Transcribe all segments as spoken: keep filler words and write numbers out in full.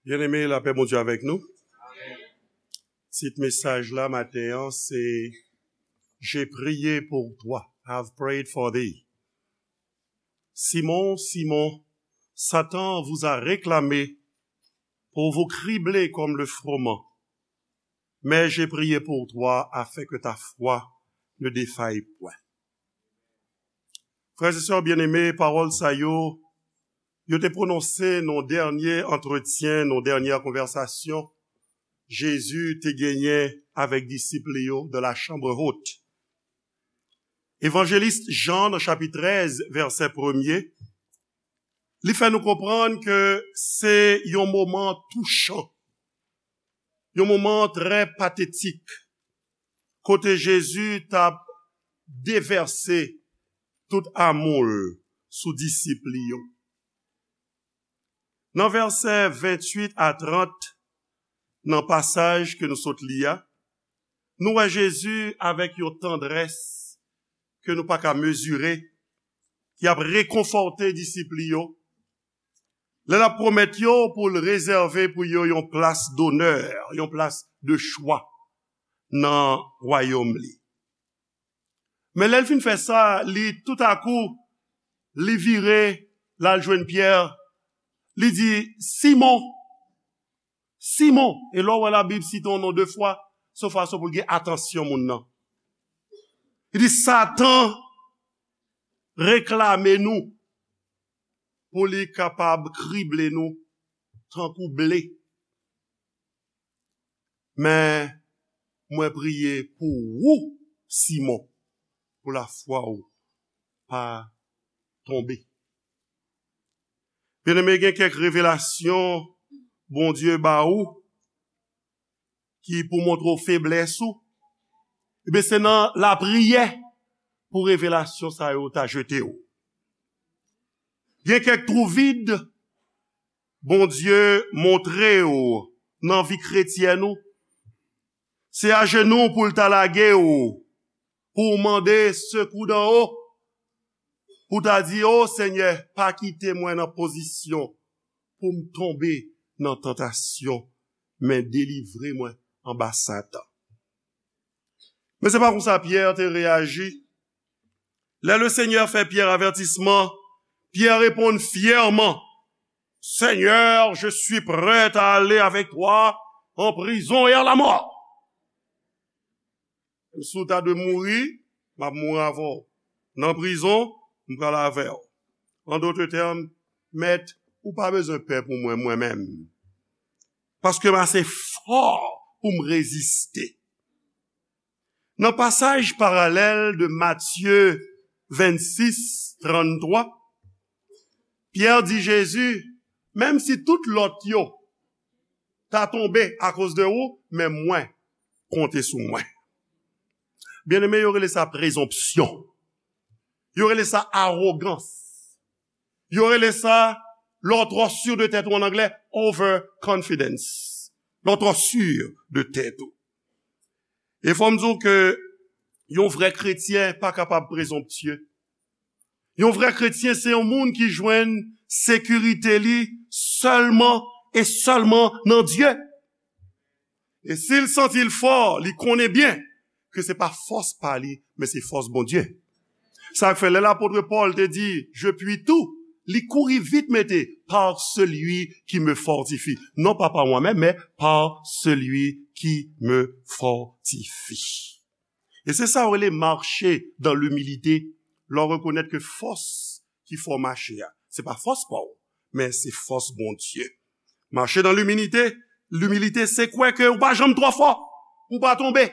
Byeneme, lapè Bondye avèk nou. Tit mesaj la maten an se J'ai prié pour toi, I've prayed for thee. Simon, Simon, Satan vous a réclamé pour vous cribler comme le froment. Mais j'ai prié pour toi afin que ta foi ne défaille point. Frè e sè byeneme, pawòl sa yo, yo te pwononse nan dènye antretyen, nan dènye konvèsasyon Jezi te genyen avèk disip li yo dans la chambre haute. Evanjelis Jan, nan chapit trèz, vèsè premye, li fè nou konprann ke se yon moman touchan, yon moman trè patetik, kote Jezi t ap devèse tout amou l sou disip li yo. Nan vèsè venntuit a trant, nan pasaj ke nou sot li a, nou wè Jezi avèk yon tandrès ke nou pa ka mezire, ki ap rekonfòte disip li yo, lè l ap pwomèt yo pou l rezève pou yo yon plas donè, yon plas de chwa nan wayòm li. Men lè l fin fè sa, li toutakou, li vire, l al jwenn Pyè, li di, Simon, Simon, e lè w wè Labib site yon non de fwa, se yon fason pou l gen atansyon moun nan. Li di, Satan reklame nou pou li kapab krible nou tankou ble. Men mwen priye pou ou, Simon, pou lafwa w pa tonbe. Byeneme, gen kèk revelasyon Bondye ba ou ki pou montre w feblès ou. Ebyen, se nan lapriyè pou revelasyon sa yo ta jete w. Gen kèk twou vid Bondye montre w nan vi kretyèn ou. Se ajenou pou l ta lage w, pou w mande sekou dan wo, pou w ta di, O Senyè, pa kite mwen nan pozisyon pou m tonbe nan tantasyon, men delivre mwen anba Satan. Men se pa konsa Pyè te reyaji. Lè Lesenyè fè Pyè avètisman, Pyè reponn fyèman, Seigneur, je suis prêt à aller avec toi en prison et à la mort. Si w ta dwe mouri, m ap mouri avè w. Nan prizon, m pral avè w. An dòt tèm, Mèt, ou pa bezwen pè pou mwen, mwen menm. Paske m ase fò pou m reziste. Nan pasaj paralèl de Matye vennsis, tranntwa, Pyè di Jezi, menm si tout lòt yo ta tonbe akoz de ou, men mwen, konte sou mwen. Byeneme, yo rele sa prezonpsyon. Yo rele sa awogans. Yo rele sa, lè w twò si de tèt ou, an anglè, overconfidence. Lè w twò si de tèt ou. E fò m di w ke yon vrè kretyen pa kapab prezonptye. Yon vrè kretyen se yon moun ki jwenn sekirite li sèlman e sèlman nan Dye. E si l santi l fò, li konnen byen ke se pa fòs pa li, men se fòs Bondye. Sa k fè lè lapot Pòl te di, Je puis tout, li kouri vit mete, par celui qui me fortifie. Non pas par moi-même, mais par celui qui me fortifie. E se sa yo rele mache dans l'humilité. Lè w rekonèt ke fòs ki fè w mache a, se pa fòs pa w, men se fòs Bondye. Mache dans l'humilité, l'humilité, se kwè ke ou pa janm twò fò pou w pa tonbe.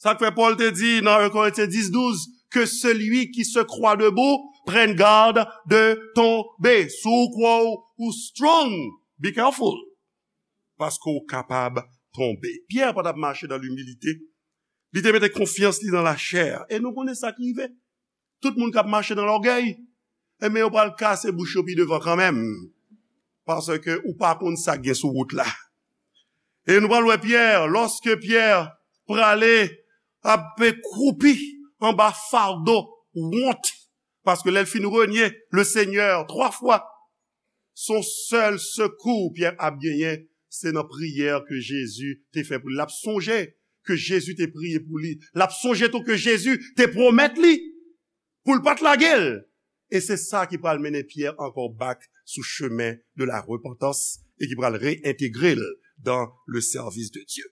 Sa k fè Pòl te di nan en Korentyen dis douz, que celui qui se croit debout prenne garde de tomber. Si w kwè w ou strong, be careful. Paske w kapab tonbe. Pyè pa t ap mache dans l'humilité. Li te mete konfyans li nan lachè. E nou konnen sa k rive. Tout moun k ap mache nan lògèy, enben, yo pral kase bouch yo pi devan kanmenm. Paske ou pa konn sa k gen sou wout la. E nou pral wè Pyè, lòske Pyè prale ap kwoupi anba fado wont, paske lè l fin renye Lesenyè twa fwa, Se yon sèl sekou Pyè ap genyen, se nan priyè ke Jezi te fè pou li. L ap sonje ke Jezi te priye pou li. L ap sonje tou ke Jezi te pwomèt li pou l pa t lage l. E se sa ki pral mennen Pyè ankò back sou chemen de la repentance e ki pral reyentegre l dans le service de Dieu.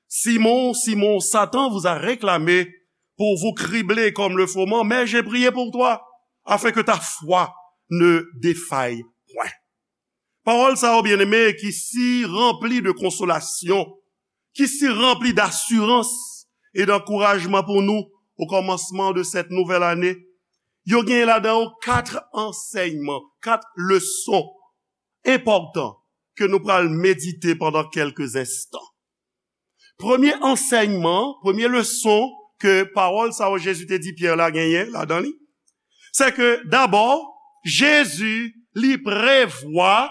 Simon, Simon, Satan vous a réclamé pour vous cribler comme le froment, mais j'ai prié pour toi, afin que ta foi ne défaille point. Pawòl sa yo, byeneme, ki si ranpli de konsolasyon, ki si ranpli dasirans e dankourajman pou nou o kòmansman de sèt nouvèl ane, yo gen ladan yo kat ansèyman, kat leson enpòtan ke nou pral medite pandan kèlke enstan. Premye ansèyman, premye leson ke pawòl sa yo Jezi te di Pyè la genyen ladan li, se ke dabò, Jezi li prevwa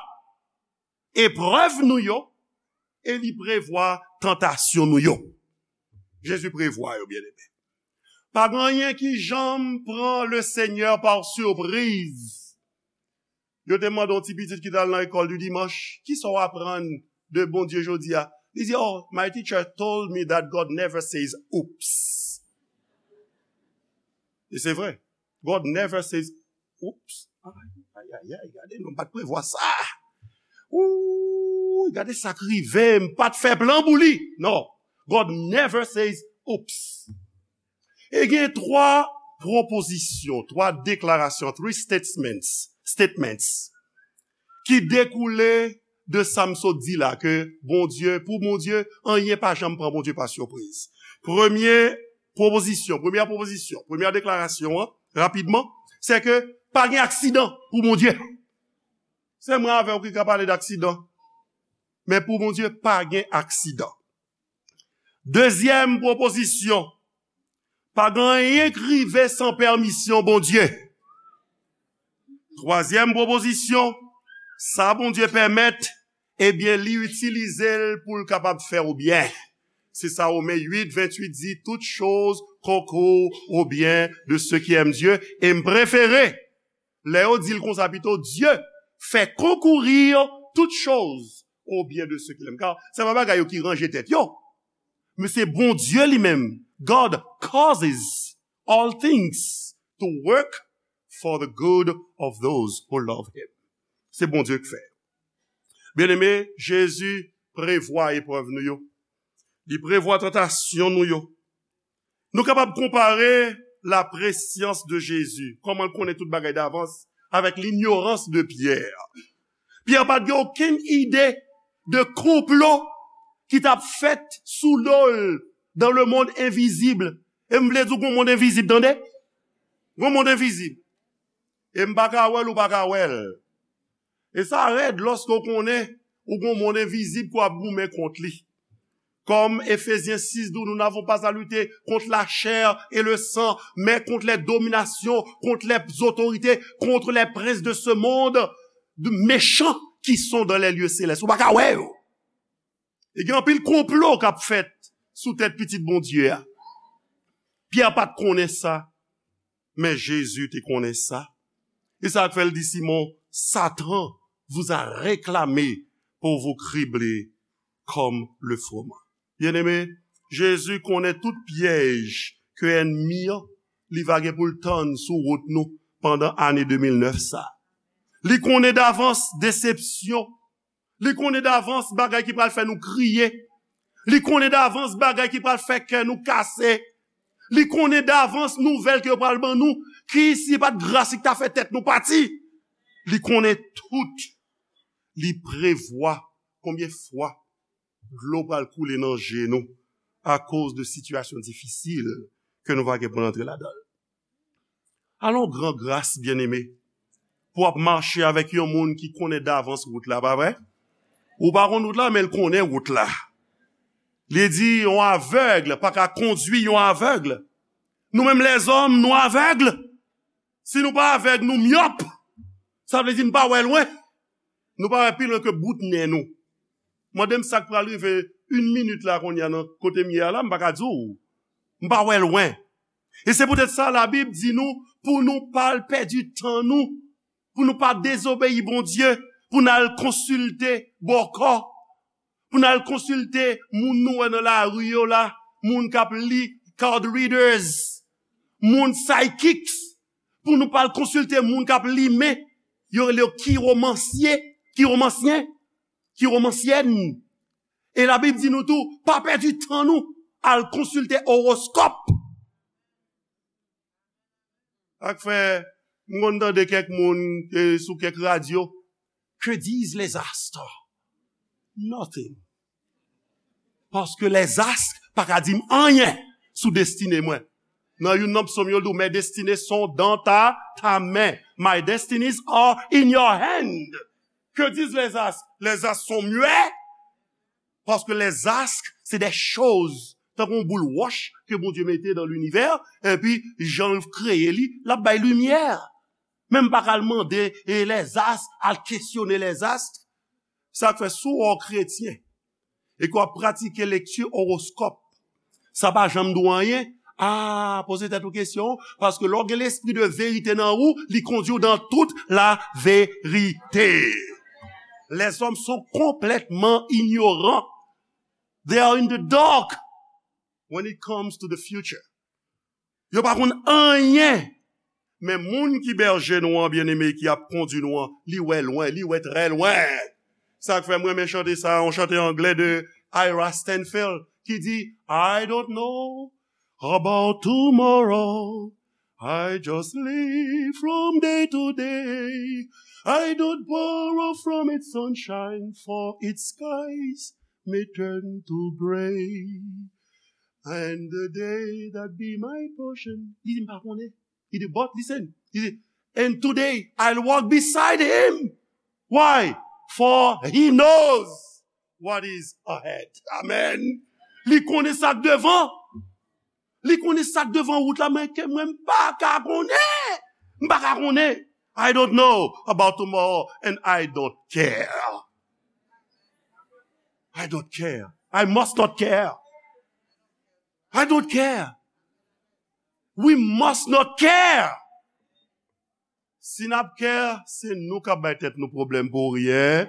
eprèv nou yo e li prevwa tantasyon nou yo. Jezi prevwa yo, byeneme. Pa gen anyen ki janm pran le Senyè pa sipriz. Yo te mande yon ti pitit ki t al nan lekòl di dimanch, "Kisa w aprann de Bondye jodi a?" Li di, "Oh, my teacher told me that God never says oops." E se vre. God never says oops. Ay, ay, ay, ay, gade, non, m pa t prevwa sa. Ooh, gade sa k rive, m pa t fè plan pou li. Non. God never says oops. E gen twa pwopozisyon, twa deklarasyon, three statements, statements, ki dekoule de sa m sot di la, ke Bondye, pou Bondye, anyen pa janm pran Bondye pa sipriz. Premye pwopozisyon, premyè pwopozisyon, premyè deklarasyon an, rapidman, se ke pa gen aksidan pou Bondye. Se mwen avè w ki ka pale d aksidan. Men pou Bondye, pa gen aksidan. Dezyèm pwopozisyon, pa gen anyen k rive san pèmisyon Bondye. Twazyèm pwopozisyon, sa Bondye pèmèt, ebyen, li itilize l pou l kapab fè w byen. Se sa Women uit venntuit di, "Toutes choses concourent au bien de ceux qui aiment Dieu." E m prefere, lè yo di l konsa pito, "Dieu fait concourir toutes choses au bien de ceux qui l'aiment." Car se pa bagay yo ki ranje tèt yo. Men se Bondye li menm. God causes all things to work for the good of those who love him. Se Bondye k fè. Byeneme, Jezi prevwa eprèv nou yo. Li prevwa tantasyon nou yo. Nou kapab konpare la prescience de Jésus, kòman l konnen tout bagay davans, avèk l'ignorance de Pierre. Pyè pa t gen okenn ide de konplo ki t ap fèt sou do l dans le monde invisible. E m vle di w gon mond envizib, tande? Gon mond envizib. E m pa ka wè l, ou pa ka wè l. E sa rèd lòske w konnen ou gon mond envizib ke w ap goumen kont li. Comme Éphésiens six dit, nous n'avons pas à lutter contre la chair et le sang, mais contre les dominations, contre les autorités, contre les princes de ce monde, de méchants qui sont dans les lieux célestes. Ou pa ka wè yo. E gen anpil konplo k ap fèt sou tèt pitit Bondye a. Pyè pa t konnen sa, men Jezi te konnen sa. E sa k fè l di Simon, Satan vous a réclamé pour vous cribler comme le froment. Byeneme, Jezi konnen tout pyèj ke ènmi an li va gen pou l tann sou wout nou pandan ane de mil nèf sa. Li konnen davans desepsyon. Li konnen davans bagay ki pral fè nou kriye. Li konnen davans bagay ki pral fè kè nou kase. Li konnen davans nouvèl ke yo pral ban nou, ki si pa t gras li k ta fè tèt nou pati. Li konnen tout. Li prevwa konbyen fwa dlo pral koule nan je nou akoz de sitiyasyon difisil ke nou va gen pou n antre ladan l. Alon gran gras, byeneme, pou w ap mache avèk yon moun ki konnen davans wout la, pa vre? Ou pa konn wout la, men l konnen wout la. Li di, yon avèg pa ka kondui yon avèg. Nou menm lèzòm, nou avèg. Si nou pa avèg, nou myòp. Sa vle di n pa wè lwen. Nou pa wè pi lwen ke bout nen nou. Mande m sa k pral rive yon minit la kounye a nan kote m ye a la, m pa ka di w. M pa wè lwen. E se poutèt sa Labib di nou pou nou pa al pèdi tan nou pou nou pa dezobeyi Bondye, pou n al konsilte bòkò, pou n al konsilte moun nou wè nan lari yo la, moun k ap li card readers, moun psychics, pou nou pa al konsilte moun k ap li men, yo rele yo kiwomansye, kiwomansyen, kiwomansyèn. E Labib di nou tou, pa pèdi tan nou al konsilte owoskòp. Ak fè, m konn tande kèk moun, eh, sou kèk radyo, que disent les astres? Nothing. Paske les astres pa ka di m anyen sou destine mwen. Nan youn nan psaume yo, l di w, mes destinées sont dans ta, ta main. My destinies are in your hand. Que disent les astres? Les astres sont muets. Paske les astres, se de choz, tankou yon boul wòch ke Bondye mete nan linivè, epi jan l kreye li, l ap bay limyè. Men m pa ka al mande, e les astres, al kesyone les astres. Sa k fè si w yon kretyen, e ke w ap pratike lekti owoskòp, sa pa janm di w anyen. Ah, poze tèt ou kesyon, paske lè w gen lespri de verite nan ou, li kondui w dans toute la vérité. Les hommes sont complètement ignorants. They are in the dark when it comes to the future. Yo pa konn anyen. Men moun ki bèje nou an, byeneme, ki ap kondui nou an, li wè lwen, li wè trè lwen. Sa k fè m renmen chante sa, yon chante anglè de Ira Stanfield, ki di, I don't know about tomorrow. I just live from day to day. I don't borrow from its sunshine, for its skies may turn to gray. And the day that be my portion. Li di, m pa konnen. Li di, but listen. Li di, and today I'll walk beside him. Why? For he knows what is ahead. Amen. Li konnen sa k devan. Li konnen sa k devan wout la, men ke mwen m pa ka konnen. M pa ka konnen. I don't know about tomorrow and I don't care. I don't care. I must not care. I don't care. We must not care. Si n ap care, se nou k ap bay tèt nou pwoblèm pou ryen.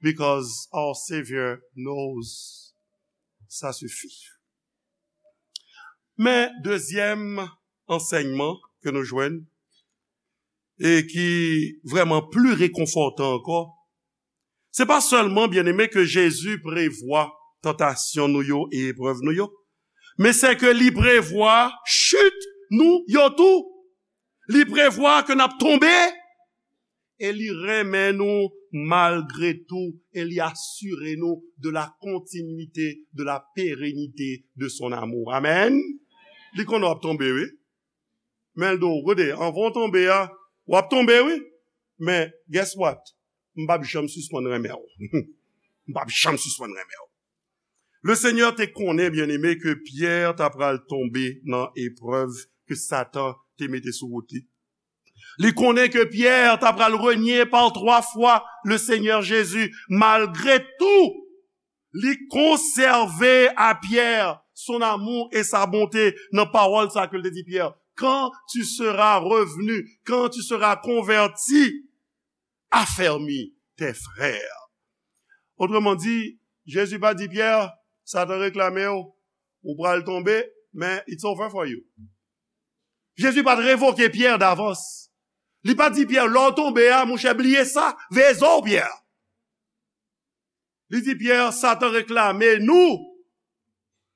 Because our Savior knows. Ça suffit. Men dezyèm ansèyman ke nou jwenn, e ki vrèman pli rekonfòtan ankò, se pa sèlman, byeneme, ke Jezi prevwa tantasyon nou yo e eprèv nou yo, men se ke li prevwa chit nou yo tou. Li prevwa ke n ap tonbe, e li renmen nou malgre tou, e li asire nou de la continuité, de la pérennité de son amour. Amèn. Li konnen w ap tonbe, wi. Men l di w, gade, anvan w tonbe a, w ap tonbe, wi. Men, guess what? M p ap janm sispann renmen w. M p ap janm sispann renmen w. Le Seigneur te konnen, byeneme, ke Pyè ta pral tonbe nan eprèv ke Satan te mete sou wout li. Li konnen ke Pyè ta pral renye par twa fwa le Seigneur Jésus. Malgre tou, li konsève a Pyè son amour et sa bonté nan pawòl sa ke l te di Pyè, quand tu seras revenu, quand tu seras converti, affermis tes frères. Otreman di, Jezi pa di Pyè, Satan reklame w, ou pral tonbe, men it's over for you. Jezi pa t revoke Pyè davans. Li pa t di Pyè, lè w tonbe a, monchè, bliye sa, veye zo w, Pyè. Li di Pyè, Satan reklame nou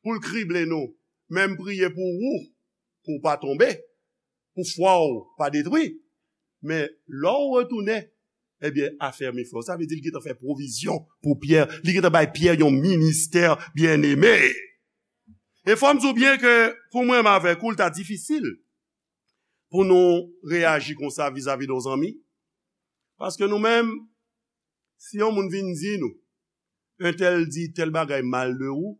pou l krible nou. Men m priye pou ou, pou w pa tonbe, pou fwa w pa detwi. Men lè w retounen, ebyen, afèmi frè w. Sa vle di li gentan fè pwovizyon pou Pyè. Li gentan bay Pyè yon ministè, byeneme. E fò m di w byen ke pou mwen menm avèk ou, l ta difisil pou nou reyaji konsa vizavi de yon zanmi. Paske nou menm, si yon moun vin di nou, entèl di tèl bagay mal de ou,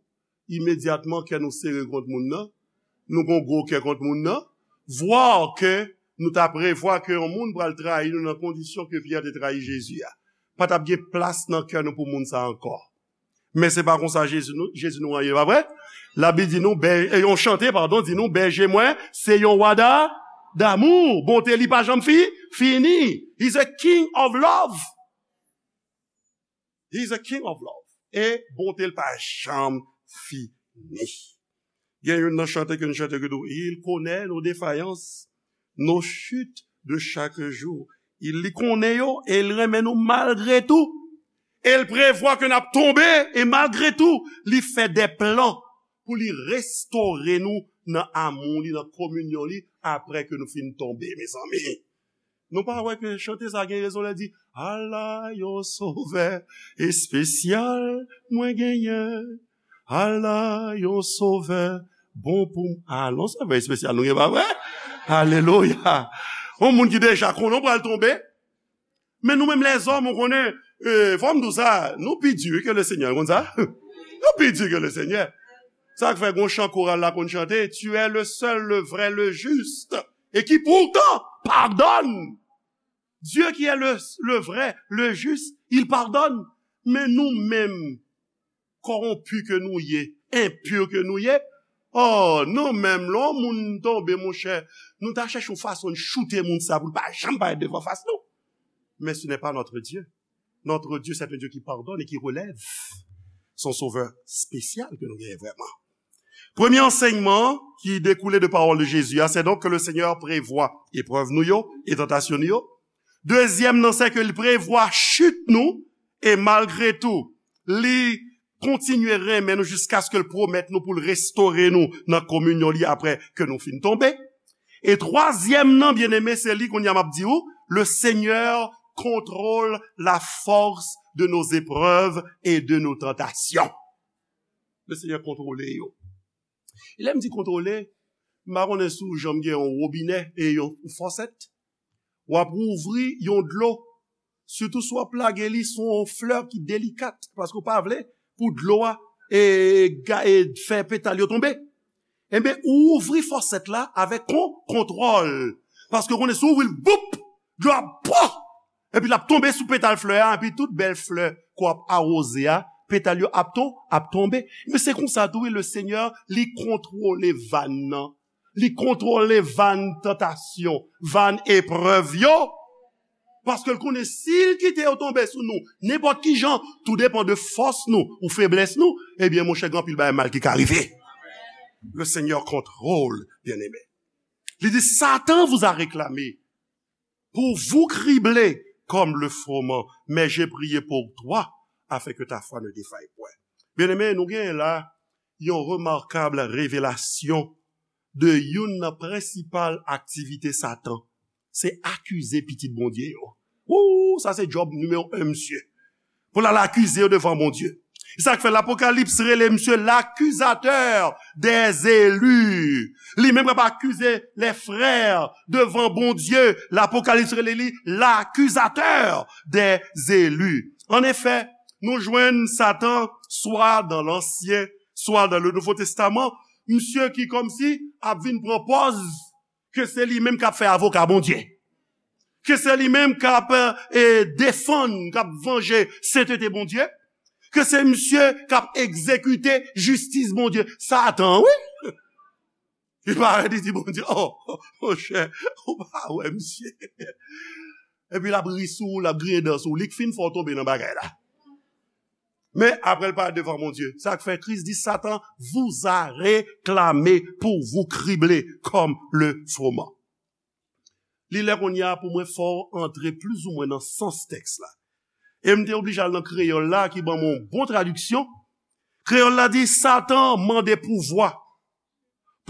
imedyatman kè nou sere kont moun nan, nou gon gwo kè kont moun nan, vwa ke nou ta prevwa ke yon moun pral trayi nou nan kondisyon ke Pyè te trayi Jezi a. Pa t ap gen plas nan kè nou pou moun sa ankò. Men se pa konsa Jezi nou, Jezi nou an ye, pa vre? Labib di nou, bè-, e yon chante, padon, di nou, bèje mwen, se yon wa da-, damou, bonte li pa janm fi, fini. He's a king of love. He's a king of love. E bonte l pa janm fini. Gen youn nan chante ke nou chante ki di, il connaît nos défaillances, nos chutes de chaque jour. Il li konnen yo e li renmen nou malgre tou. E l prevwa ke n ap tonbe e malgre tou, li fè de plan pou li restore nou nan amou li, nan kominyon li, apre ke nou fin tonbe, mezanmi. Nou pa wè ke chante sa gen rezon lè di, ala yon sovè espesyal mwen genyen. Ala yon sovè bon pou m. Ala yon sovè espesyal nou gen, pa vre? Alelouya. Yon moun ki deja konnen w pral tonbe. Men nou menm lèzòm, ou konnen, e, fò m di w sa, nou pi di ke le Senyè, ou konn sa? Nou pi di ke le Senyè. Sa k fè gon chan koral la konn chante, tu es le seul, le vrai, le juste, et qui pourtant pardonne. Dieu qui est le, le vrai, le juste, il pardonne. Men nou menm, kòwonpi ke nou ye, enpi ke nou ye, oh, nou menm, lè yon moun tonbe, monchè, nou ta chèche yon fason n choute moun sa pou l pa janm parèt devan fas nou. Mais ce n'est pas notre Dieu. Notre Dieu, c'est un Dieu qui pardonne et qui relève. Se yon sovè espesyal ke nou genyen vrèman. Premye ansèyman ki dekoule de pawòl de Jezi a, se donk ke le Senyè prevwa eprèv nou yo e tantasyon nou yo. Dezyèm nan, se ke li prevwa chit nou, e malgre tou, li kontinye renmen nou jiskaske l pwomèt nou pou l restore nou nan kominyon li apre ke nou fin tonbe. E twazyèm nan, byeneme, se li kounye a m ap di ou, le Seigneur contrôle la force de nos épreuves et de nos tentations. Le Senyè kontwole yo. E lè m di kontwole, m pa konnen si w janm gen yon wobinè e yon fòsèt. W ap ouvri yon dlo, sitou si w ap lage li sou yon flè ki delikat, paske w pa vle pou dlo a e, ga- e fè petal yo tonbe. Enben, ou ouvri fòsèt la avèk kon, kontwòl. Paske w konnen si w ouvri l, boup, dlo a, pwa! Epi l ap tonbe sou petal flè a, epi tout bèl flè ke w ap awoze a, petal yo ap to-, ap tonbe. Men se konsa tou, wi, le Senyè, li kontwole van nan. Li kontwole van tantasyon, van eprèv yo. Paske l konnen si l kite yo tonbe sou nou, nenpòt ki jan, tou depan de fòs nou ou feblès nou, ebyen, monchè, gen anpil bagay mal ki ka rive. Le Seigneur contrôle, bien-aimé. Li di, Satan vous a réclamé pour vous cribler comme le froment, mais j'ai prié pour toi, afin que ta foi ne défaille point. Byeneme, nou genyen la yon remakab revelasyon de youn nan prensipal aktivite Satan. Se akize pitit Bondye yo. Wou, sa se djòb nimewo en, misye. Pou l al akize yo devan Bondye. E sa k fè Lapokalips rele misye l'accusateur des élus. Li menm k ap akize les frères devan Bondye. Lapokalips rele li l'accusateur des élus. An efè, nou jwenn Satan swa dan Lansyen, swa dan le Nouvo Testaman, misye ki kòmsi ap vin pran pòz ke se li menm k ap fè avoka Bondye. Ke se li menm k ap, e, defann, k ap vanje sentete Bondye. Ke se misye k ap egzekite jistis Bondye. Satan, wi. Li parèt, li di Bondye, oh, monchè, ou pa wè misye. Epi l ap ri sou ou, l ap griyen dan sou ou. Li k fin fè w tonbe nan bagay la. Men apre l parèt devan Bondye. Sa k fè Kris di, Satan vous a réclamé pour vous cribler comme le froment. Li lè kounye a pou mwen fè w antre plizoumwen nan sans tèks la. E m te oblije al nan kreyòl la ki ban mwen yon bon tradiksyon. Kreyòl la di, Satan mande pouvwa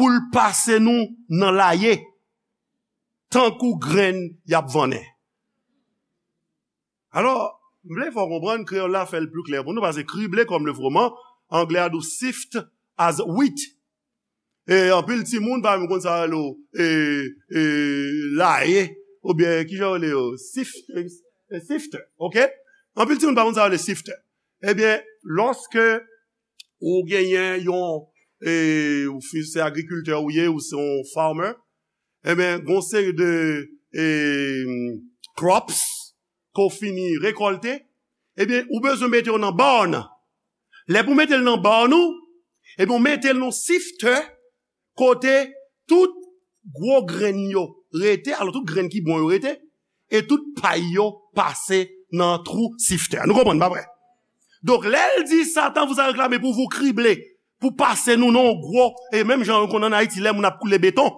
pou l pase nou nan laye, tankou grenn y ap vannen. Alò, m vle fè w konprann, kreyòl la fè l pli klè pou nou, paske cribler comme le froment, anglè a di w sift as wheat. E anpil timoun, pa menm konn sa rele w, e, e, laye, oubyen ki jan yo rele yo, sif-, e, e, sifter, oke? Anpil timoun pa konn sa rele sifter. Ebyen, lòske ou genyen yon, e, ou fi-, se agrikiltè ou ye, ou se yon farmer, ebyen, gon seri de, e, crops ke w fini rekòlte, ebyen, ou bezwen mete yo nan barn. Lè pou mete l nan barn ou, ebyen, ou mete l nan sifter, kote tout gwo grenn yo, rete, alò tout grenn ki bon yo rete, e tout pay yo pase nan twou siftè. Nou konprann, pa vre? Donk, lè l di, Satan vous a réclamé pour vous cribler, pou pase nou nan yon gwo, e menm jan yo konn ann Ayiti, lè moun ap koule beton,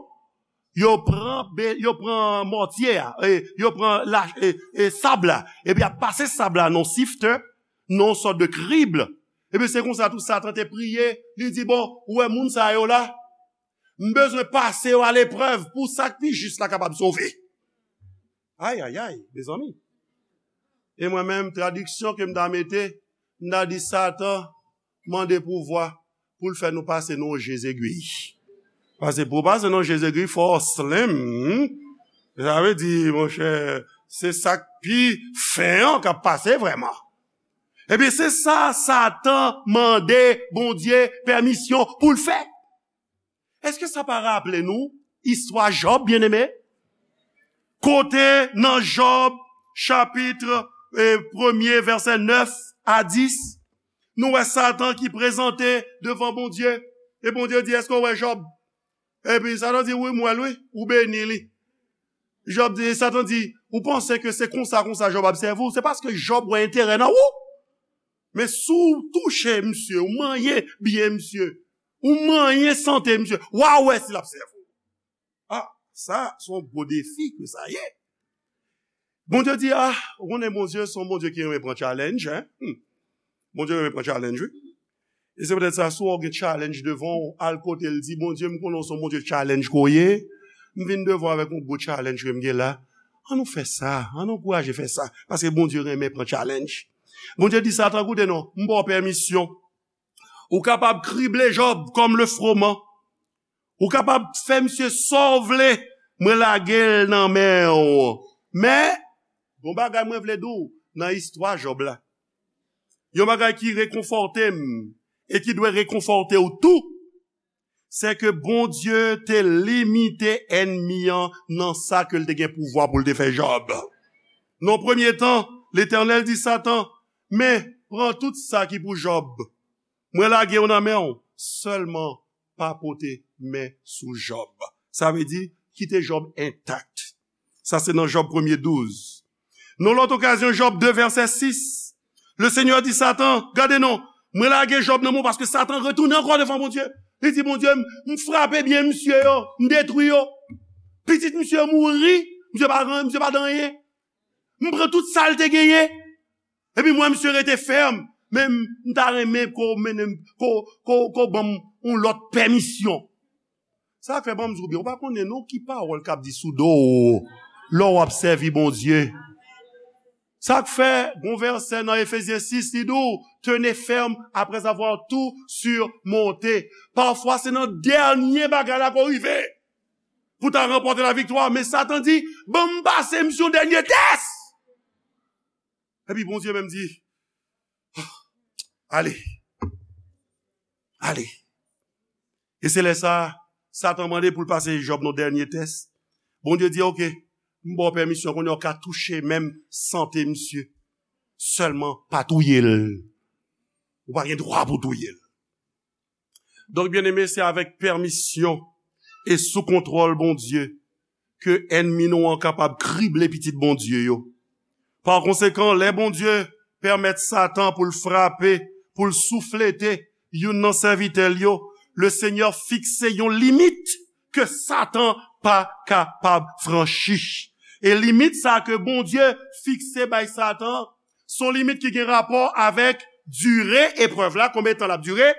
yo pran, be- yo pran mòtye a, e, yo pran la, e, e, sab la, epi y ap pase sab la nan yon siftè, nan yon sòt de krib. Epi se konsa tou Satan te priye, li di, bon, ou wè moun sa yo la, m bezwen pase yo a leprèv pou sa k pi jis la kapab sove. Ay, ay, ay, mezanmi. E mwen menm, tradiksyon ke m ta mete, m ta di Satan mande pouvwa pou l fè nou pase nan je zegwi. Paske pou w pase nan je zegwi, fò w slim. Sa vle di, monchè, se sa k pi fen an k ap pase vrèman. Ebyen, se sa Satan mande Bondye pèmisyon pou l fè. Èske sa pa raple nou istwa Jòb, byeneme? Kote nan Jòb, chapit, eh, premye, vèsè nèf a dis, nou wè Satan ki prezante devan Bondye. E Bondye di, èske w wè Jòb? Epi Satan di, wi, m wè l, wi, ou beni li. Jòb di, Satan di, ou panse ke se konsa, konsa Jòb ap sèvi w? Se paske Jòb wè enterè nan ou. Men si w touche misye, ou manyen byen misye, ou manyen sante misye, w a wè si l ap sèvi w. Ah, sa, se yon gwo defi ke sa ye. Bondye di, ah, ou konnen Bondye, se yon Bondye ki renmen pran challenge, hein? Hmm. Bondye renmen pran challenge, wi. E se poutèt sa, si w gen challenge devan w, al kote l, di, Bondye, m konnen w se yon Bondye challenge ke w ye. M vin devan w avèk yon gwo challenge ke m gen la. An nou fè sa, an nou ankouraje fè sa. Paske Bondye renmen pran challenge. Bondye di Satan, koute non, m ba w pèmisyon. Ou kapab krible Jòb kòm le froman. Ou kapab fè misye sa w vle, mwen lage l nan men w. Men, gon bagay mwen vle di w nan istwa Jòb la. Yon bagay ki rekonfòte m e ki dwe rekonfòte w tou, se ke Bondye te limite ènmi an nan sa ke l te gen pouvwa pou l te fè Jòb. Nan premye tan, Letènèl di Satan, men, pran tout sa ki pou Jòb. Mwen lage yo nan men w, sèlman pa pote men sou Jòb. Sa vle di, kite Jòb entak. Sa se nan Jòb premye douz. Nan lòt okazyon, Jòb de vèsè sis, le Senyè di Satan, gade non, mwen lage Jòb nan men w paske Satan retounen ankò devan Bondye. Li di, Bondye, m, m frape byen misye yo, m detwi yo. Pitit misye mouri, misye pa, misye pa t anyen. M pran tout sa l te genyen. Epi mwen, misye rete fèm, men m, m ta renmen ke w mennen m, ke w, ke w, ke w ban m yon lòt pèmisyon. Sa k fè ban m di w byen, ou pa konnen non ki pawòl k ap di sou do w lè w ap sèvi Bondye. Sa k fè, gon vèsè nan Efezyen sis, li di w, tenez ferme après avoir tout surmonté. Pafwa, se nan dènye bagay la ke w rive pou w ta ranpòte laviktwa. Men Satan di, ban m pase misye yon dènye tès. Epi Bondye menm di, ale, ale. E se lè sa a, Satan mande pou l pase Jòb nan dènye tès. Bondye di, oke, m ba w pèmisyon, kounye a w ka touche menm sante misye. Sèlman pa touye l. Ou pa gen dwa pou touye l. Donk, byeneme, se avèk pèmisyon e sou kontwòl Bondye ke ènmi nou an kapab krible pitit Bondye yo. Pa konsekan, lè Bondye pèmèt Satan pou l frape, pou l souflete youn nan sèvitè l yo, Lesenyè fikse yon limit ke Satan pa kapab franchi. E limit sa ke Bondye fikse bay Satan, se yon limit ki gen rapò avèk dire eprèv la, konbyen tan l ap dire,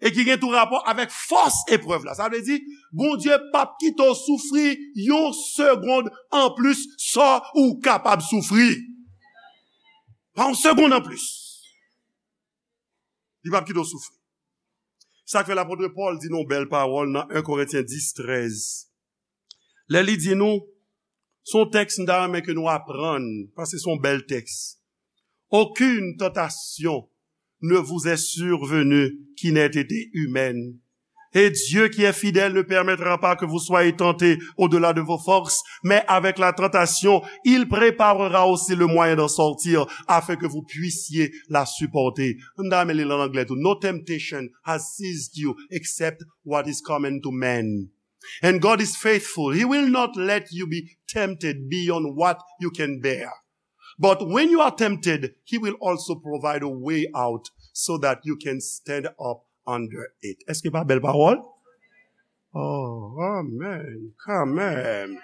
e ki gen tou rapò avèk fòs eprèv la. Sa vle di, Bondye p ap kite w soufri yon segonn anplis sa ou kapab soufri. Pa yon segonn anplis. Li p ap kite w soufri. Sa k fè lapot Pòl di nou yon bèl pawòl nan en Korentyen dis trèz. Lè li di nou, se yon tèks m ta renmen ke nou aprann, paske se yon bèl tèks. Aucune tentation ne vous est survenue qui n'ait été humaine. Et Dieu qui est fidèle ne permettra pas que vous soyez tentés au-delà de vos forces, mais avec la tentation, il préparera aussi le moyen d'en sortir afin que vous puissiez la supporter. M ta renmen li l an anglè tou. No temptation has seized you except what is common to man. And God is faithful. He will not let you be tempted beyond what you can bear. But when you are tempted, He will also provide a way out so that you can stand up under it. Èske pa bèl pawòl? Oh, amen. Kanmenm.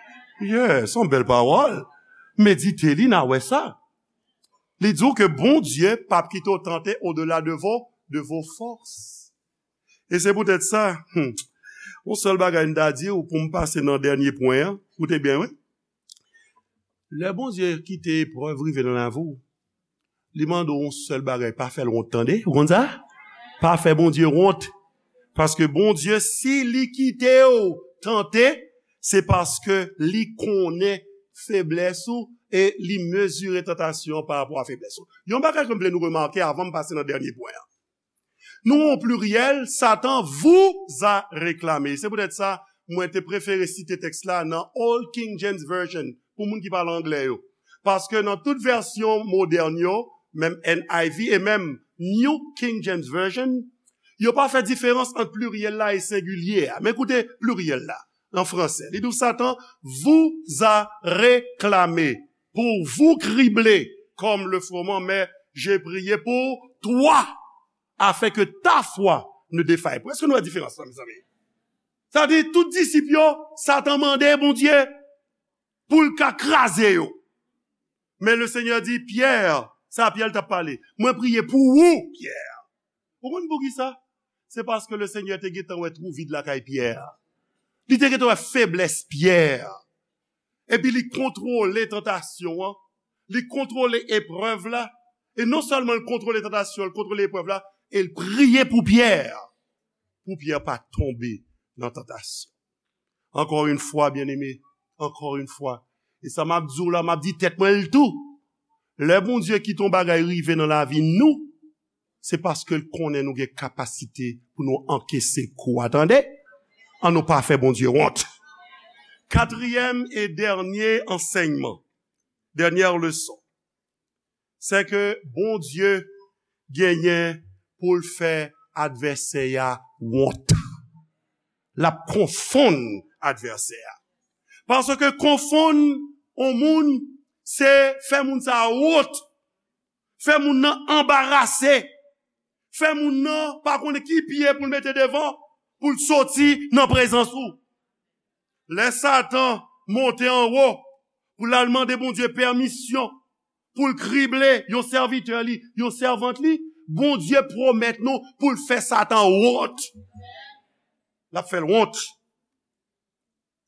Yes, yon bèl pawòl. Medite li, n a wè sa. Li di w ke Bondye p ap kite w tante au-delà de vos, de vos forces. E se poutèt sa, hmm, yon sèl bagay m ta di w pou m pase nan dènye pwen an, koute byen, wi. Lè Bondye kite eprèv rive nan lavi w, li mande w yon sèl bagay, pa fè l wont, tande. Ou konn sa? Pa fè Bondye wont. Paske Bondye, si li kite w tante, se paske li konnen feblès ou e li mezire tantasyon an pa rapò a feblès ou. Yon bagay ke m vle nou remake avan m pase nan dènye pwen an. Nou an pliryèl, Satan vous a réclamé. Se poutèt sa, mwen te prefere site tèks la nan Old King James Version, pou moun ki pale anglè yo. Paske nan tout vèsyon modèn yo, menm N I V e menm New King James Version, yo pa fè diferans ant pliryèl la e sengilye a. Men koute pliryèl la, an fransè. Li di w, Satan vous a réclamé pour vous cribler comme le froment, mais j'ai prié pour toi, afin que ta foi ne défaille point. Èske nou wè diferans la, mezanmi? Sa di, tout disip yo, Satan mande Bondye pou l ka kraze yo. Men le Seigneur di, Pyè, sa Pyè l t ap pale, mwen priye pou ou, Pyè. Ou konn poukisa? Se paske le Seigneur te gentan wè twou vid lakay Pyè. Li te gentan wè feblès Pyè. Epi li kontwole tantasyon an, li kontwole eprèv la. E non sèlman l kontwole tantasyon, l kontwole eprèv la, e l priye pou Pyè, pou Pyè pa tonbe nan tantasyon. Encore une fois, bien-aimé, encore une fois. E sa m ap di w la, m ap di tèt mwen l tou. Lè Bondye kite yon bagay rive nan lavi nou, se paske l konnen nou gen kapasite pou nou ankese kou a, tande. An nou pa fè Bondye wont. Katriyèm e dènye ansèyman, dènyè leson, se ke Bondye genyen pou l fè advèsè a wont. L ap konfonn advèsè a. Paske konfonn yon moun, se fè moun sa a wont. Fè moun nan anbarase. Fè moun nan pa konnen ki pye pou l mete devan pou l soti nan prezans ou. Lè Satan monte anwo pou l al mande Bondye pèmisyon pou l krible yon sèvitè li, yon sèvant li, Bondye pwomèt nou pou l fè Satan wont. L ap fè l wont.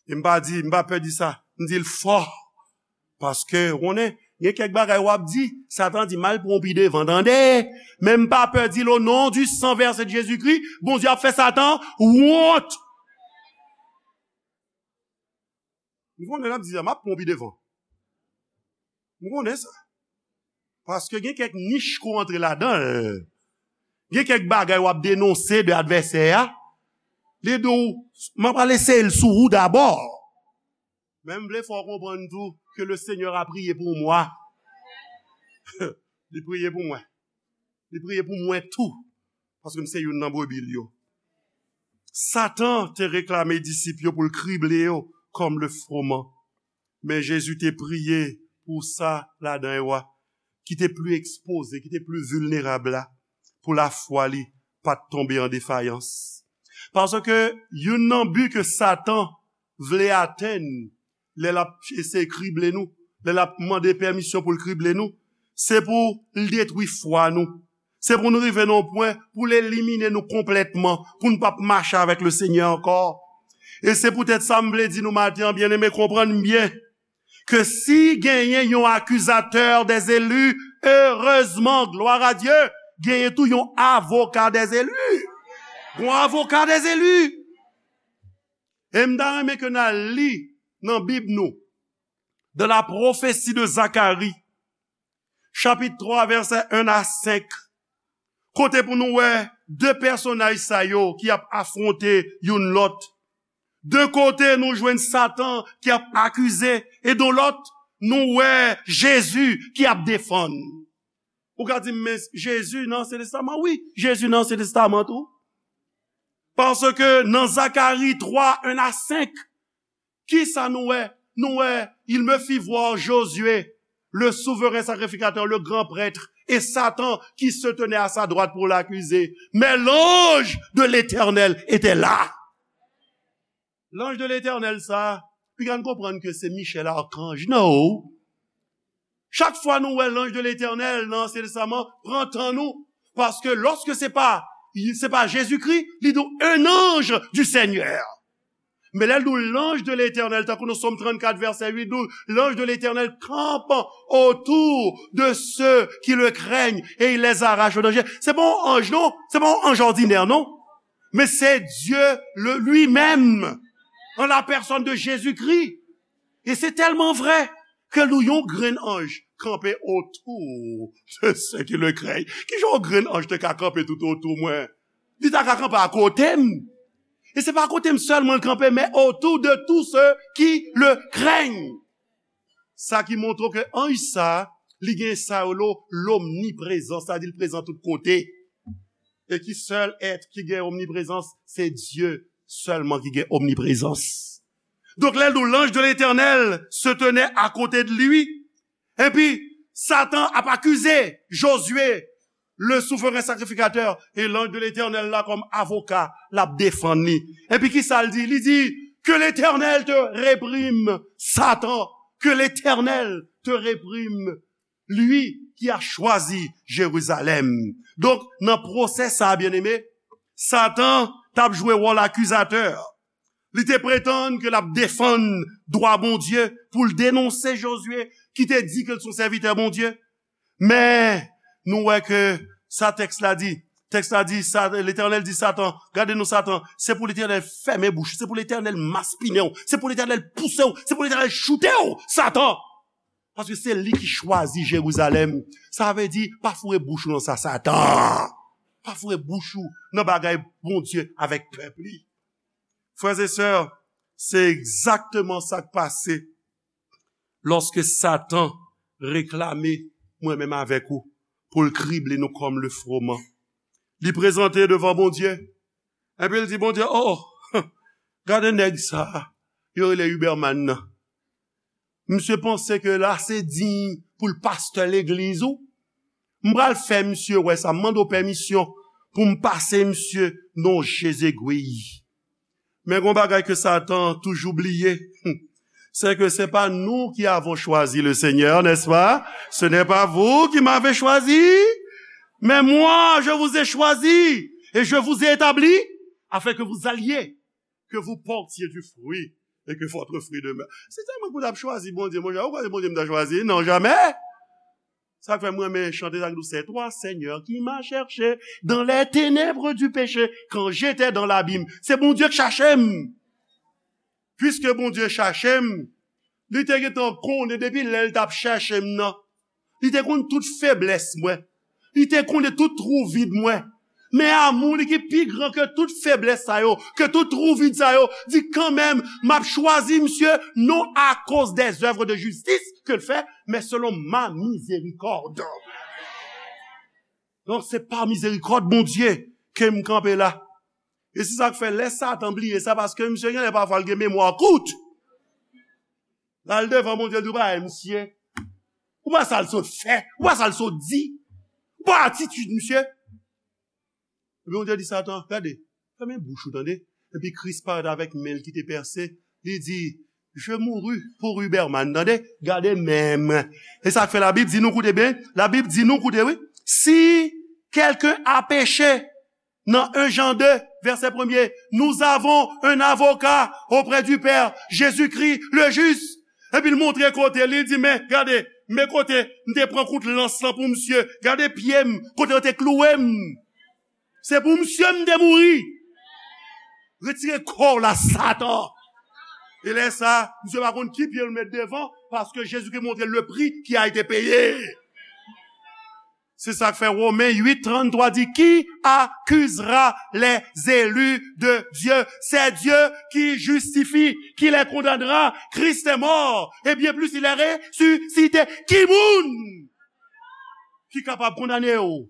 E m pa di, m pa pè di sa. M di l fò. Paske, ou konnen, gen kèk bagay w ap di, Satan di, m al pran w pi devan, tande. Men m pa pè di l, o non du sang versé de Jésus-Christ, Bondye ap fè Satan wont. M konnen l ap di sa, m ap pran w pi devan. M konnen sa. Paske gen kèk nich ke w antre ladan l. Gen kèk bagay w ap denonse de advèsè a. Li di w, m ap al eseye l sou ou dabò. Men m vle fè w konprann tou que le Seigneur a prié pour moi. Li priye pou mwen. Li priye pou mwen tou. Paske m se youn nan brebi l yo. Satan te reklame disip yo pou l krible yo comme le froment. Men Jezi te priye pou sa ladan yo a, ki te pli ekspoze, ki te pli vilnerab la, pou lafwa li pa t tonbe an defayans. Paske youn nan bi ke Satan vle atenn lè l ap eseye krible nou, lè l ap mande pèmisyon pou l krible nou, se pou l detwi fwa nou. Se pou nou rive nan yon pwen pou l elimine nou konplètman, pou n p ap mache avèk le Senyè ankò. E se poutèt sa m vle di nou maten an, byeneme, konprann byen, ke si genyen yon accusateur des élus, heureusement, gloire à Dieu, genyen tou yon avocat des élus. Yon avocat des élus. E m ta renmen ke n al li nan Bib nou, dans la prophétie de Zacharie, chapit twa, vèsè en a senk, kote pou nou wè de pèsonaj sa yo ki ap afwonte youn lòt. De kote, nou jwenn Satan ki ap akize, e de lòt, nou wè Jezi ki ap defann. Ou ka di m, men Jezi nan Ansyen Testaman? Wi, Jezi nan Ansyen Testaman tou. Paske nan Zakari twa, en a senk, kisa nou wè? Nou wè, il me fit voir Josué, le souverain sacrificateur, le grand prêtre, et Satan qui se tenait à sa droite pour l'accuser. Mais l'ange de l'Éternel était là. Lanj de Letènèl sa, piga n konprann ke se Michèl akanj, no. Chak fwa nou wè lanj de Letènèl nan Ansyen Testaman, pran tan nou. Paske lòske se pa, se pa Jezikri, li di w, un ange du Seigneur. Men lè l di w lanj de Letènèl, tankou nan Sòm trannkat, vèsè uit, di w, l'ange de l'Éternel campe autour de ceux qui le craignent et il les arrache au danger. Se pa yon anj, non. Se pa yon anj òdinè, non. Men se Dye le, li menm, an la pèsòn de Jezikri. E se tèlman vrè ke nou yon grenn anj kanpe otou de ceux qui le craignent. Kijan yon grenn anj te ka kanpe tout otou mwen? Li ta ka kanpe akote m. E se pa akote m sèlman l kanpe, men autour de tous ceux qui le craignent. Sa ki montre w ke anj sa, li gen sa yo lo lomniprezans, sa di l prezan tout kote. E ki sèl èt ki gen omniprezans? Se Dye sèlman ki gen omniprezans. Donk, lè l di w, l'ange de l'Éternel se tenait à côté de lui, epi Satan ap akize Josué, le souverain sacrificateur, e l'ange de l'Éternel la kòm avoka, l ap defann li. Epi ki sa l di? Li di, que l'Éternel te réprime, Satan, que l'Éternel te réprime, lui qui a choisi Jérusalem. Donk, nan pwosè sa a, byeneme, Satan t ap jwe wòl akizatè. Li te pretann ke l ap defann dwa Bondye pou l denonse Jozye ki te di ke l se yon sèvitè Bondye. Men, nou wè ke sa tèks la di. Tèks la di, sa, Letènèl di Satan, gade non Satan, se pou Letènèl fèmen bouch ou, se pou Letènèl maspinen w, se pou Letènèl pouse w, se pou Letènèl choute w, Satan! Paske se li ki chwazi Jerizalèm. Sa vle di, pa foure bouch ou nan sa, Satan. Pa foure bouch ou nan bagay Bondye avèk pèp li. Frè e sè, se egzakteman sa k pase lòske Satan reklame mwen menm avèk ou pou l krible nou kòm le froment. Li prezante devan Bondye, epi l di Bondye, oh, gade nèg sa a, yo rele Huberman nan. Misye panse ke l ase diy pou l pastè legliz ou. M pral fè misye wè sa, m mande w pèmisyon pou m pase misye nan yon je zegwi. Men gon bagay ke Satan toujou bliye, c'est que c'est pas nous qui avons choisi le Seigneur, n'est-ce pas? Ce n'est pas vous qui m'avez choisi, mais moi, je vous ai choisi et je vous ai établi afin que vous alliez, que vous portiez du fruit et que votre fruit demeure. Si se mwen pou t ap chwazi Bondye, monchè, ou kwè se Bondye m ta chwazi? Non, jamè! Sa k fè m renmen chante sa ki di, c'est toi, Seigneur, qui m'as cherché dans les ténèbres du péché, quand j'étais dans l'abîme. Se Bondye k chache m. Piske Bondye chache m, li te gentan konnen depi lè l t ap chache m nan. Li te konn tout feblès mwen. Li te konnen tout twou vid mwen. Men amou li ki pi gran ke tout feblès sa yo, ke tout twou vid sa yo, di kanmenm, m ap chwazi misye, non à cause des œuvres de justice ke l fè, men selon ma miséricorde. Donk, se pa mizerikòd Bondye ke m kanpe la. E se sa k fè lè Satan bliye sa, paske misye genlè pafwa l gen memwa kout. L al devan Bondye, l di, "Ou pa wè misye? Ou pa sa l sot fè? Ou pa sa l sot di? Ou pa atitid misye?" Epi Bondye di Satan, "Gade, fèmen bouch ou, tande." Epi Kris parèt avèk men l ki te pèse, li di, "Je mourus pour Huberman," tande, gade men m. E sa k fè Labib di nou, koute byen, Labib di nou, koute wi, si quelqu'un a péché, nan un Jean deux, vèsè premye, nous avons un avocat auprès du Père, Jésus-Christ le juste. Epi l montre kote, li di, "Men, gade, men kote m te pran kout lans lan pou misye. Gade pye m, kote yo te klouwe m. Se pou misye m te mouri. Retire kò w la, Satan." E lè sa, misye pa konn ki pye l met devan, paske Jezikri montre le prix qui a été payé. Se sa k fè Women uit tranntwa di, "Qui accusera les élus de Dieu? C'est Dieu qui justifie, qui les condamnera? Christ est mort, et bien plus, il est ressuscité. Ki moun ki kapab kondane w?"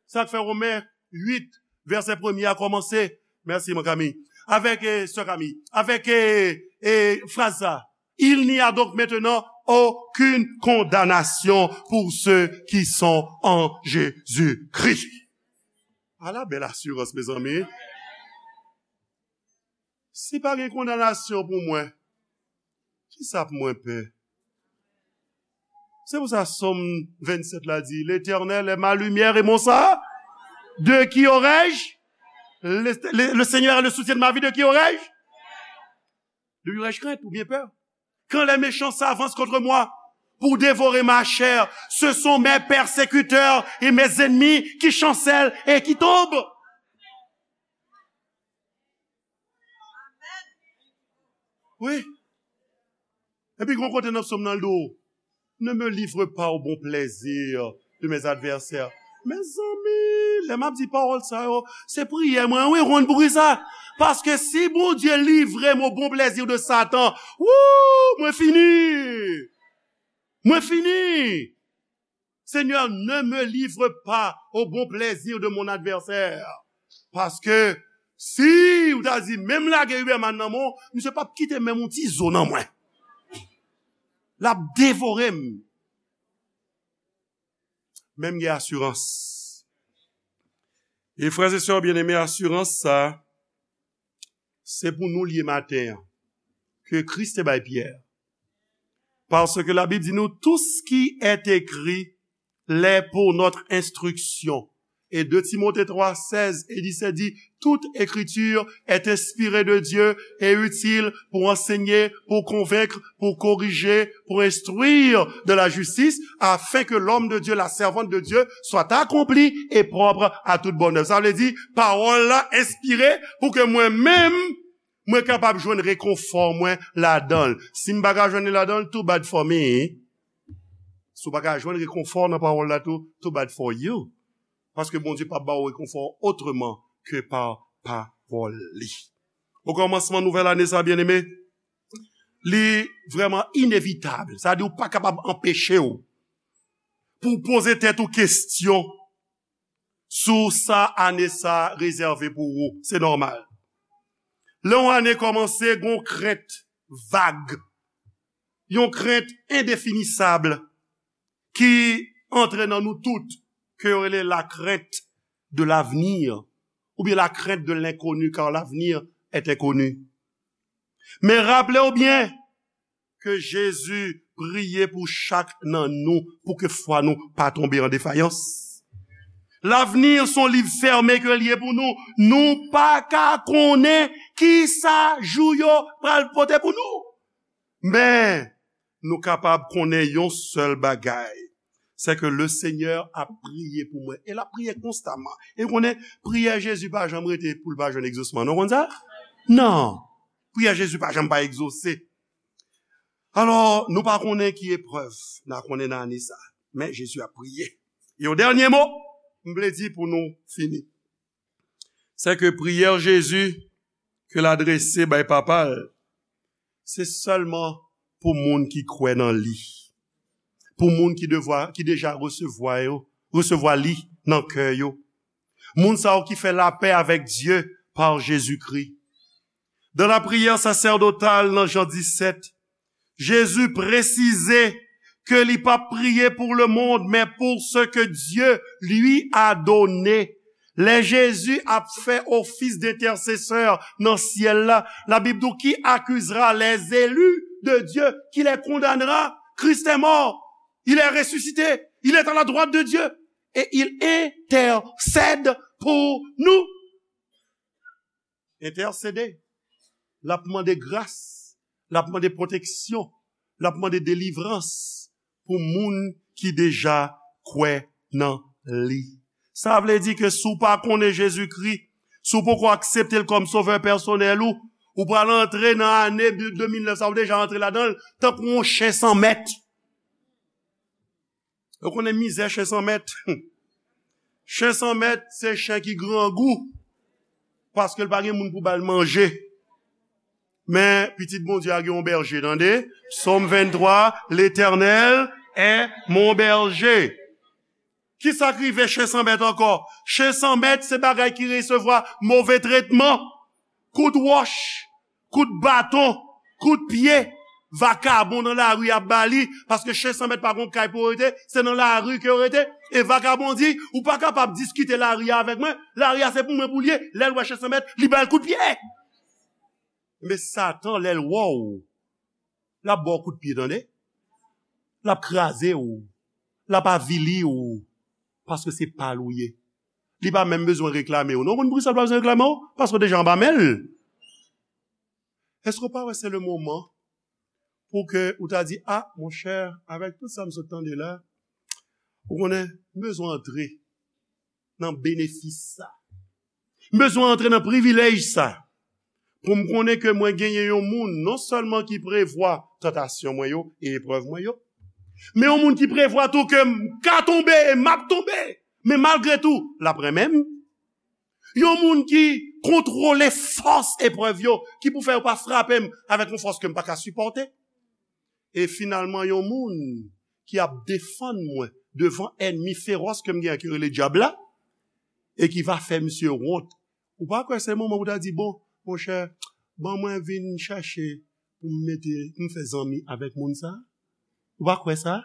Sa k fè Women uit, vèsè premye a kòmanse, Mèsi, mon Kami. Avèk, eh, sè Kami. Avèk, eh, eh, fraz sa. Il n'y a donc maintenant aucune condamnation pour ceux qui sont en Jésus-Christ. Ala bèl asirans, mezanmi. Si pa gen kondanasyon pou mwen, kisa pou mwen pè? Se pou sa Sòm vennsèt la di, L'Éternel est ma lumière et mon salut. De qui aurai-je? Le, le, le Seigneur est le soutien de ma vie, de qui aurai-je? De qui aurai-je crainte ou bien peur? Quand les méchants s'avancent contre moi pour dévorer ma chair, ce sont mes persécuteurs et mes ennemis qui chancellent et qui tombent. Wi. Epi gon kote nan Sòm nan l di w, ne me livre pas au bon plaisir de mes adversaires. Mezanmi, lè m ap di pawòl sa yo, se priyè mwen, wi, konn pou ki sa. Paske si Bondye livre m au bon plaisir de Satan, wou, mwen fini. Mwen fini. Seigneur, ne me livre pas au bon plaisir de mon adversaire. Paske si ou ta di, menm lage Uberman nan men w, misye p ap kite menm yon ti zo nan mwen. L ap devore m. Men m gen asirans. E frè e sè byeneme, asirans sa, se pou nou l ye maten an, ke Kris te bay Pyè. Parce que la Bible dit nous, tout ce qui est écrit l'est pour notre instruction. Et deux Timothée trois, seize et dix-sept dit, toute écriture est inspirée de Dieu et utile pour enseigner, pour convaincre, pour corriger, pour instruire de la justice, afin que l'homme de Dieu, la servante de Dieu, soit accompli et propre à toute bonne œuvre. Sa vle di, pawòl la enspire pou ke mwen menm, mwen kapab jwenn rekonfò mwen ladan l. Si m pa ka jwenn li ladan l, too bad for me. Si w pa ka jwenn rekonfò nan pawòl la tou, too bad for you. Paske Bondye p ap ba w rekonfò otreman ke pa pawòl li. Okòmansman nouvèl ane sa, byeneme, li vrèman inevitab. Sa di w pa kapab anpeche w pou w poze tèt ou kesyon sou sa ane sa rezève pou ou. Se nòmal. Lè yon ane kòmanse, gon krent vag, yon krent endefinisab ki antre nan nou tout, ke yo rele la crainte de l'avenir, oubyen la crainte de l'inconnu, car l'avenir est inconnu. Men raple w byen ke Jezi priye pou chak nan nou, pou ke fwa nou pa tonbe an defayans. Lavni se yon liv fèmen ke l ye pou nou. Nou pa ka konnen kisa jou yo pral pote pou nou. Men, nou kapab konnen yon sèl bagay, se ke le Seigneur ap priye pou mwen. E l ap priye konstaman. E w konnen, priyè Jezi pa janm rete pou l pa jwenn egzosman. Non, w konn sa? Non. Priyè Jezi pa janm pa egzose. Alò, nou pa konnen ki eprèv n a konnen nan ane sa. Men Jezi ap priye. E yon dènye mo, m vle di pou nou fini. Se ke priyè Jezi ke l adrese bay Papa l, se sèlman pou moun ki kwè nan li. Pou moun ki devwa, ki deja resevwa yo, resevwa li nan kè yo. Moun sa yo ki fè lapè avèk Dye pa Jezikri. Dans la prière sacerdotale nan Jan disèt, Jezi presize ke li p ap priye pou le monde, men pou ce que Dieu lui a donné. Lè Jezi ap fè ofis d'entèsesè nan syèl la, Labib di w, qui accusera les élus de Dieu, qui les condamnera? Christ est mort, il est ressuscité, il est à la droite de Dieu et il intercède pour nous. Entèsede. L ap mande gras, l ap mande pwoteksyon, l ap mande delivrans pou moun ki deja kwè nan li. Sa vle di ke si w pa konnen Jezikri, si w poko aksepte l kòm sovè pèsonèl ou, ou pral antre nan ane de, de mil nèf sa, ou deja antre ladan l, tankou yon chen san mèt. Ou konnen mizè chen san mèt? Chen san mèt, se chen ki grangou, paske l pa gen moun pou ba l manje. Men, pitit Bondye a gen yon bèje, tande. Sòm venntwa, L'Éternel est mon berger. Kisa k rive chen san mèt ankò? Chen san mèt, se bagay ki resevwa move tretman. kout wòch, kout baton, kout pye, vakabon nan lari ap ba li, paske chen san mèt pa gon kay pou yo rete, se nan lari ke yo rete. E vakabon di, ou pa kapab diskite lari a avèk mwen, lari a se pou mwen pou l ye, lè l wè chen san mèt, li ba l kout pye. Men Satan, lè l wè w, l ap ba w kout pye, tande. L ap kraze w, l ap avili w, paske se pa l ou ye. Li pa menm bezwen reklame w. Non, konn poukisa l pa bezwen reklame w? Paske w deja anba men l. Èske w pa wè se le moman pou ke ou ta di, a, monchè, avèk tout sa m sot tande la, ou konnen, m bezwen antre nan benefis sa. M bezwen antre nan privilèj sa. Pou m konnen ke mwen genyen yon moun, non sèlman ki prevwa tantasyon mwen yo e eprèv mwen yo, men yon moun ki prevwa tou ke m ka tonbe e m ap tonbe, men malgre tou, l ap renmen m. Yon moun ki kontwole fòs eprèv yo, ki pou fè yo pa frape m avèk yon fòs ke m pa ka sipòte. E finalman, yon moun ki ap defann mwen devan ènmi feròs ke m gen an, ki rele dyab la, e ki va fè misye wont. Ou pa kwè se moman pou ta di, bon, monchè, ban mwen vin chèche pou m mete, pou m fè zanmi avèk moun sa? Ou pa kwè sa?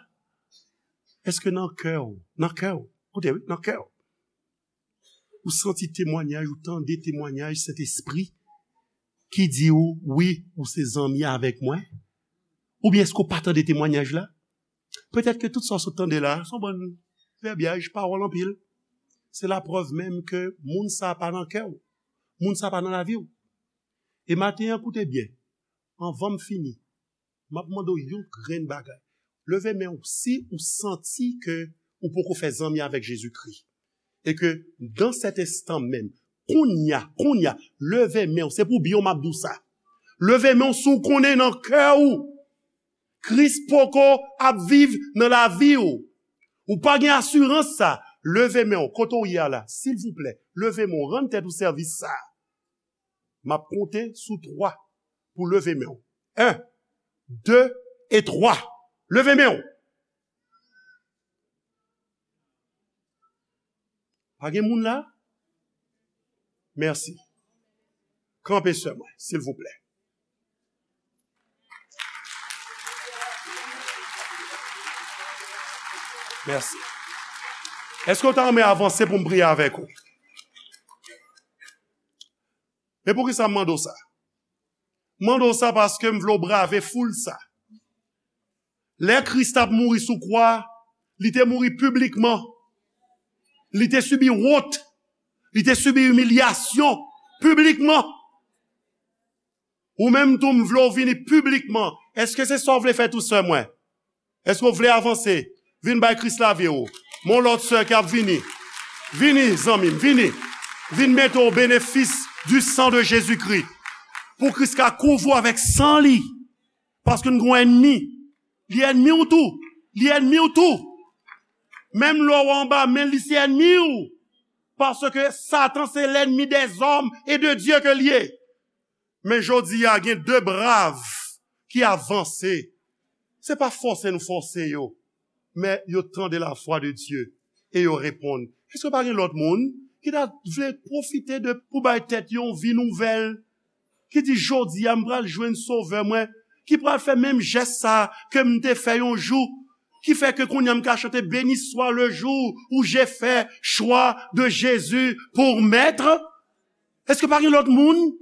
Èske nan kè w, nan kè w, koute wi, nan kè w, ou santi temwanyaj, ou tande temwanyaj Sentespri ki di w, wi, ou se zanmi avèk mwen? Oubyen èske w pa tande temwanyaj la? Petèt ke tout sa w sot tande la, se yon bann vèbyaj, pawòl anpil. Se laprèv menm ke moun sa a pa nan kè w. Moun sa a pa nan lavi w. E maten an, koute byen. Anvan m fini, m ap mande w yon grenn bagay. Leve men w si ou santi ke ou poko fè zanmi avèk Jezikri. E ke dans cet instant même, kounye a, kounye a, leve men w, se pou byen w m ap di w sa. Leve men w si w konnen nan kè w, Kris poko ap viv nan lavi w. Ou pa gen asirans sa. Leve men w, kote w ye a la, silvouplè, leve men w, rann tèt ou sèvis sa. M ap konte sou twa pou leve men w. En, de e twa. Leve men w. Pa gen moun la? Mèsi. Kanpe sè mwen, silvouplè. Mèsi. Èske w ta renmen avanse pou m priye avèk ou? Men poukisa m mande w sa? M mande w sa paske m vle w brave foul sa. Lè Kris t ap mouri sou kwa, li te mouri piblikman. Li te sibi wont. Li te sibi imilyasyon piblikman. Ou menm tou, m vle w vini piblikman. Èske se sa w vle fè tou, sè mwen? Èske w vle avanse? Vin bay Kris lavi w. Mon lòt sè ki ap vini. Vini, zanmi m, vini. Vin mete w benefis du sang de Jésus-Christ. Pou Kris ka kouvri w avèk san li. Paske n gon ènmi. Li ènmi w tou. Li ènmi w tou. Menm lè w anba men li, se ènmi w. Paske Satan se l'ennemi des hommes et de Dieu ke l ye. Men jodi a, gen de brav ki avanse. Se pa fòse nou fòse yo, men yo tande la voix de Dieu e yo reponn. Èske pa gen lòt moun ki ta vle pwofite de, pou bay tèt yo yon vi nouvèl? Ki di, jodi a, m pral jwenn Sovè mwen, ki pral fè menm jès sa ke m te fè yon jou, ki fè ke kounye a m ka chante, béni soit le jour où j'ai fait choix de Jésus pour maître. Èske pa gen lòt moun?